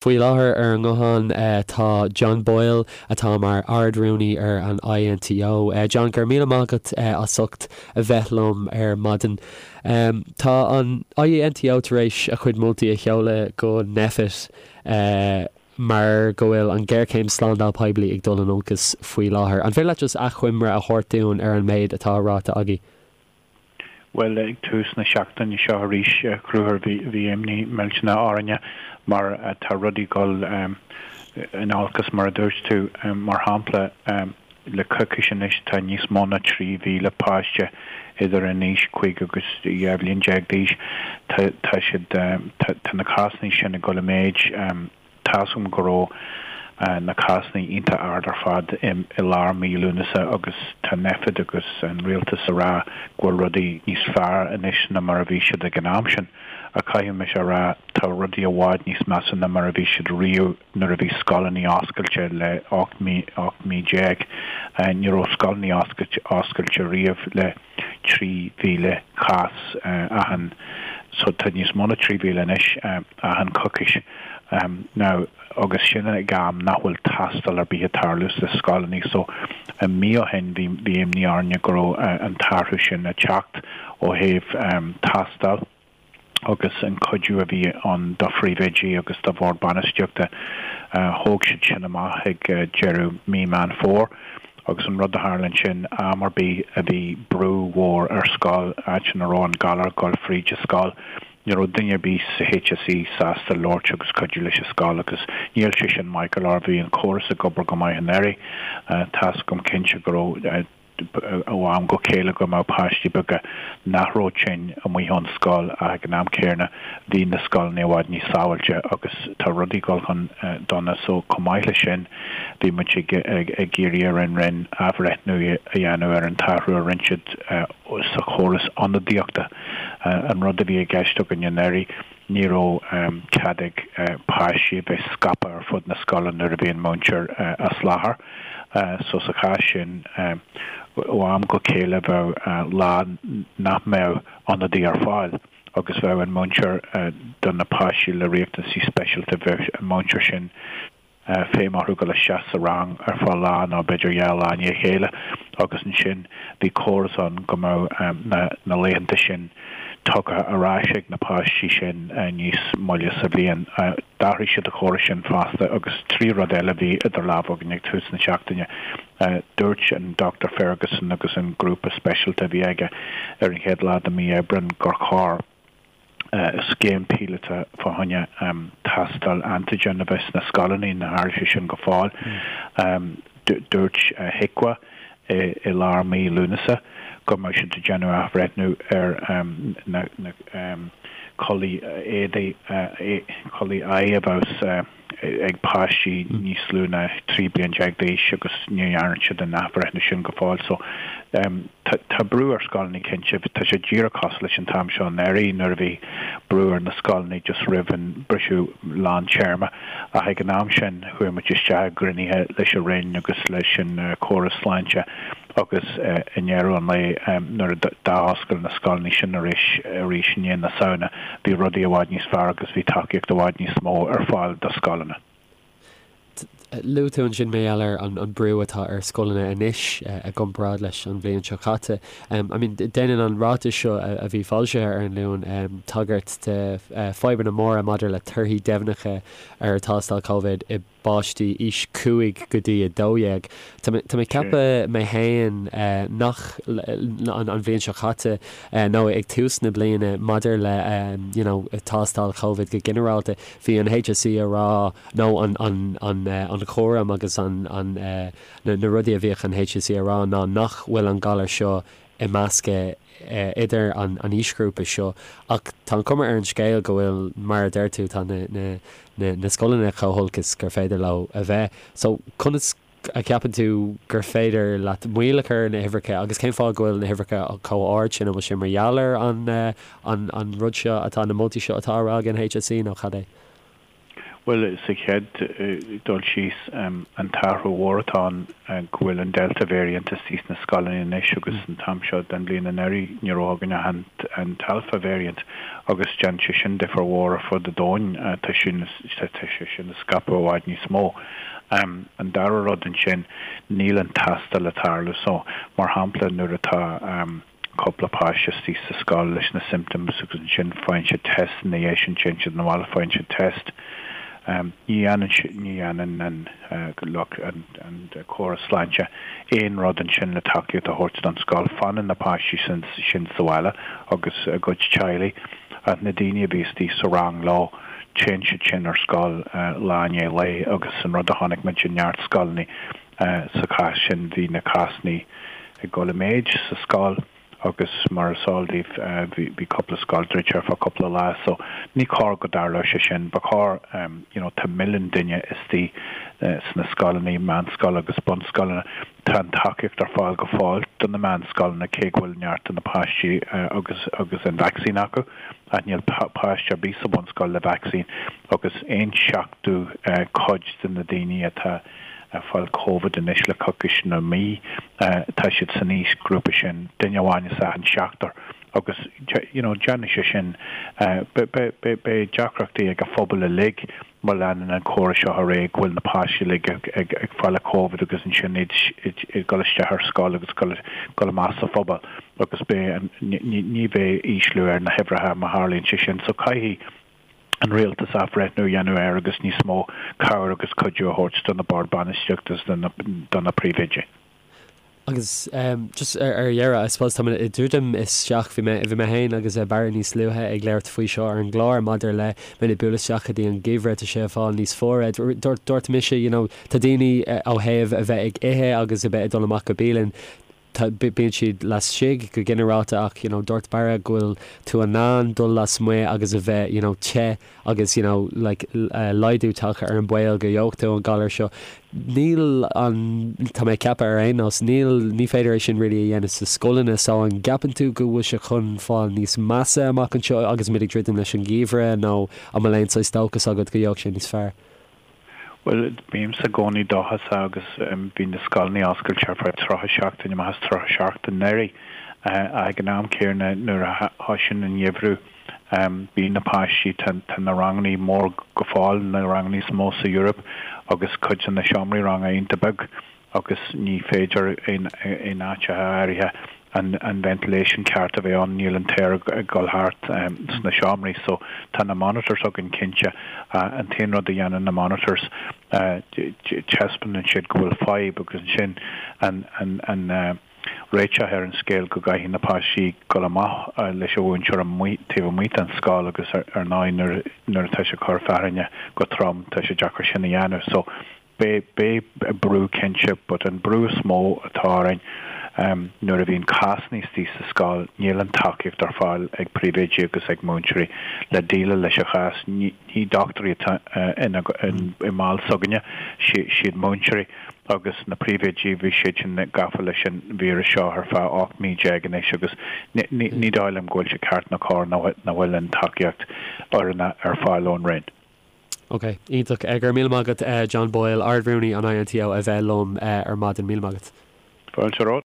Faoi láthair ar an nguthán tá John Boyle atá mar Ard-Rúnaí ar an INTO. John, go raibh míle maith agat as ucht a bheith liom ar maidin. Tá an INTO tar éis a chuid moltaí a sheoladh go Nphet mar go bhfuil an ghéarchéim slándáil poiblí ag dul in olcas faoi láthair. An féidir leat just achoimre a thabhairt dúinn ar an méid atá ráite agaibh? Bhuel, ag tús na seachtaine seo arís, a Chonchúir, bhí imní millteanach orainne mar tá rudaí ag dul in olcas, mar a dúirt tú. Mar shampla, le coicís anois tá níos mó ná 3,000 páiste idir an aois 5 agus 12 bhliain d'aois, tá siad, tá na cásanna sin ag dul i méid. Tá's agam go raibh na cásanna iontach ard ar fad i lár mí Lúnasa agus tá Nphet agus an rialtas a rá go bhfuil rudaí níos fearr anois ná mar a bhí siad ag an am sin. Ach caithfidh mise a rá, tá rudaí i bhfad níos measa ná mar a bhí siad riamh nuair a bhí scoileanna oscailte le 18 mí. Ní raibh scoileanna oscailte riamh le 3,000 cás achan, so tá níos mó ná 3,000 anois achan coicís now agus sin ag am nach bhfuil tástáil ar bith ag tarlú sna scoileanna so mí ó shin bhí bhí imní orainne go raibh an t-athrú sin ag teacht ó thaobh tástáil. agus an cuidiú a bhí ann do phríomhoidí agus do bhord bainistíochta, thóg siad sin amach ag deireadh mí Meán Fómhair agus an rud a tharla ansin, am ar bith a bhí brú mhór ar scoil, áit ina raibh an galar ag dul fríd an scoil, ní raibh duine ar bith sa HSE sásta labhairt agus cuidiú leis an scoil agus níl sé sin maith go leor, bhí an córas ag obair go maith anuraidh, tá's agam cinnte go raibh. ó am go chéile go mbeadh páistí beaga nach raibh tinn amuigh ón scoil ach ag an am céanna bhí na scoileanna i bhfad níos sábháilte agus tá rudaí ag dul chun dona so chomh maith leis sin bhí muid ag ag iarraidh ar an Roinn athbhreithniú a dhéanamh ar an t-athrú a rinne siad sa chóras ionadaíochta. An rud a bhí i gceist againn anuraidh Ní raibh cead ag páistí a bheith scaipthe ar fud na scoile nuair a bhí an múinteoir as láthair. So sa chás sin, ó am go chéile bheadh lá nach mbeadh ionadaí ar fáil agus bheadh an múinteoir do na páistí le riachtanaisí speisialta, bheadh an múinteoir sin, feidhm orthu dul isteach sa rang ar feadh lá nó b'fhéidir dhá lá i ndiaidh a chéile agus ansin bhí córas ann go mbeadh na laethanta sin tugtha ar ais ag na páistí sin níos moille sa bhliain. D'athraigh siad an córas sin fosta agus trí rud eile a bhí idir lámha againn ag tús na seachtaine. Dúirt an Dr Ferguson agus an grúpa speisialta a bhí aige ar an chéad lá de mhí Aibreáin gur chóir scéim píolóta fá choinne tástáil antigen a bheith sna scoileanna, níor tharla sé sin go fóill. Dúirt HIQA i lár mí Lúnasa go mbeadh siad ag déanamh athbhreithniú ar na culaith éadaí, culaith aghaidhe a bheas ag páistí níos lú ná 13 bliain d'aois agus ní dhearna siad an athbhreithniú sin go fóill. So tá brú ar scoileanna cinnte. Tá sé díreach cosúil leis an t-am seo anuraidh nuair a bhí brú ar na scoileanna just roimh an briseadh lán téarma ach ag an am sin chuaigh muid isteach i gcruinnithe leis an Roinn agus leis an córas sláinte agus i ndeireadh an lae nuair a d'athoscail na scoileanna sin arís arís i ndiaidh na Samhna, bhí rudaí i bhfad níos fearr agus bhí tacaíocht i bhfad níos mó ar fáil do scoileanna. Luaigh tú ansin mar gheall ar an brú atá ar scoileanna anois i gcomparáid leis an bhliain seo caite. I mean, déanann an ráiteas seo a bhí foilsithe ar an Luan tagairt do fadhbanna móra maidir le torthaí deimhneacha ar thástáil Covid i bpáistí aois 5 go dtí 12. Tá mé ag ceapadh mé féin nach an bhliain seo caite nó ag tús na bliana maidir le you know tástáil Covid go ginearálta, bhí an HSE a rá nó an an an an chúram agus an an na rudaí a bhíodh an HSE a rá ná nach bhfuil an galar seo ag meascadh idir an aoisghrúpa seo ach tá an chuma ar an scéal go bhfuil, mar a deir tú, tá na scoileanna chomh holc is gur féidir leo a bheith. So conas a cheapann tú gur féidir leat moill a chur ar na huimhreacha agus cén fáth go bhfuil na huimhreacha chomh ard sin? An bhfuil sé mar gheall ar an rud seo atá, na moltaí seo atá á rá ag an HSE nó cad é? Bhuel, sa chéad dul síos, an t-athrú mhór atá ann go bhfuil an Delta variant istigh sna scoileanna anois agus an t-am seo den bhliain anuraidh ní raibh againn ach an t-Alpha variant agus déanann sé sin difear mhór ar fud an domhain, tá sé sin ag scaipeadh i bhfad níos mó. An dara rud ansin, níl an tástáil ag tarlú so, mar shampla, nuair atá. cúpla páiste istigh sa scoil leis na symptoms agus ansin faigheann siad test ina dhiaidh sin téann siad 'na bhaile faigheann siad test. Ní dhéanann ní dhéanann an lucht an an córas sláinte aon rud ansin le tacaíocht a thabhairt don scoil. Fanann na páistí sin sin sa bhaile agus a gcuid teaghlaigh ach na daoine a bhí istigh sa rang leo téann siad sin ar scoil lá i ndiaidh lae agus an rud a chonaic muid i neart scoileanna Sa chás sin, bhí na cásanna ag dul i méid sa scoil agus mar is eol daoibh, bhí cúpla scoil druidte ar feadh cúpla lá. So, ní chóir go dtarlódh sé sin. Ba chóir, you know, tá milliún duine istigh sna scoileanna, meánscoil agus bunscoileanna. Tá an tacaíocht ar fáil go fóill do na meánscoileanna, cé go bhfuil neart de na páistí agus agus an vacsaín acu, ach níl páiste ar bith sa bhunscoil le vacsaín agus aon seachtú cuid de na daoine atá ag fáil Covid anois le coicís nó mí. Tá siad san aoisghrúpa sin, duine amháin as achan seachtar agus you know déanfaidh sé sin, beidh deacrachtaí ag an phobal uilig má leanann an córas seo ar aghaidh go bhfuil na páistí uilig ag fáil Covid agus ansin iad ag dul isteach ar scoil agus dul amach sa phobal agus beidh, ní bheidh ísliú ar na huimhreacha má tharlaíonn sé sin. So caithfidh. an rialtas athbhreithniú a dhéanamh air agus níos mó cabhair agus cuidiú a thabhairt do na boird bainistíochta agus do na príomhoidí. Agus just ar dheireadh, I suppose tá mé ag druidim isteach, bhí mé, bhí mé féin agus Barra níos luaithe ag labhairt faoi seo ar an gclár maidir le muid ag bualadh isteach go dtí an geimhreadh, tá sé ag fáil níos fuaire. Dúirt, dúirt mise, you know, tá daoine ó thaobh a bheith ag ithe agus a bheith ag dul amach go bialann, Tá, bíonn siad laistigh go ginearálta ach you know dúirt Barra go bhfuil tú in ann dul lasmuigh agus a bheith you know te agus you know like laghdú tagtha ar an baol go gheobhaidh tú an galar seo. Níl an, tá mé ag ceapadh ar aon nós, níl, ní féidir é sin really a dhéanamh sa scoileanna so an gceapann tú go bhfuil sé chun fáil níos measa amach anseo agus muid ag druidim leis an gheimhreadh nó an bhfuil aon saghas dóchas agat go gheobhaidh sé níos fearr? Bhuel, bímse i gcónaí dóchasach agus bhí na scoileanna oscailte ar feadh 30 seachtain amach as 30 seachtain anuraidh. Ach ag an am céanna, nuair a thosaíonn an geimhreadh, bíonn na páistí, tá na ranganna mór go fóill, na ranganna is mó sa Eoraip agus cuid de na seomraí ranga iontach beag. agus ní féidir in áiteacha áirithe an ventilation ceart a bheith ann, níl an t-aer ag dul thart sna seomraí. So tá na monitors againn cinnte. An t-aon rud a dhéanann na monitors, taispeánann siad go bhfuil fadhb agus ansin an réiteach ar an scéal go gcaithfidh na páistí dul amach leis an mhúinteoir amuigh taobh amuigh den scoil agus ar ndóigh nuair atá sé ag cur fearthainne go trom tá sé deacair sin a dhéanamh. So Beidh brú cinnte, but an brú is mó atá orainn nuair a bhíonn cásanna istigh sa scoil, níl an tacaíocht ar fáil ag príomhoidí agus ag múinteoirí le déileáil leis an chás. Ní dochtúirí atá i mball s'againne, siad múinteoirí agus na príomhoidí, bhí siad sin gafa leis an víreas seo ar feadh 18 mí anois agus ní dóigh liom go bhfuil sé ceart ná cóir nach bhfuil an tacaíocht oiriúnach ar fáil ón Roinn. Ok, iontach. Go raibh míle maith agat John Boyle, Ard-Rúnaí an INTO a bheith liom ar maidin. Míle maith agat. Fáilte romhat.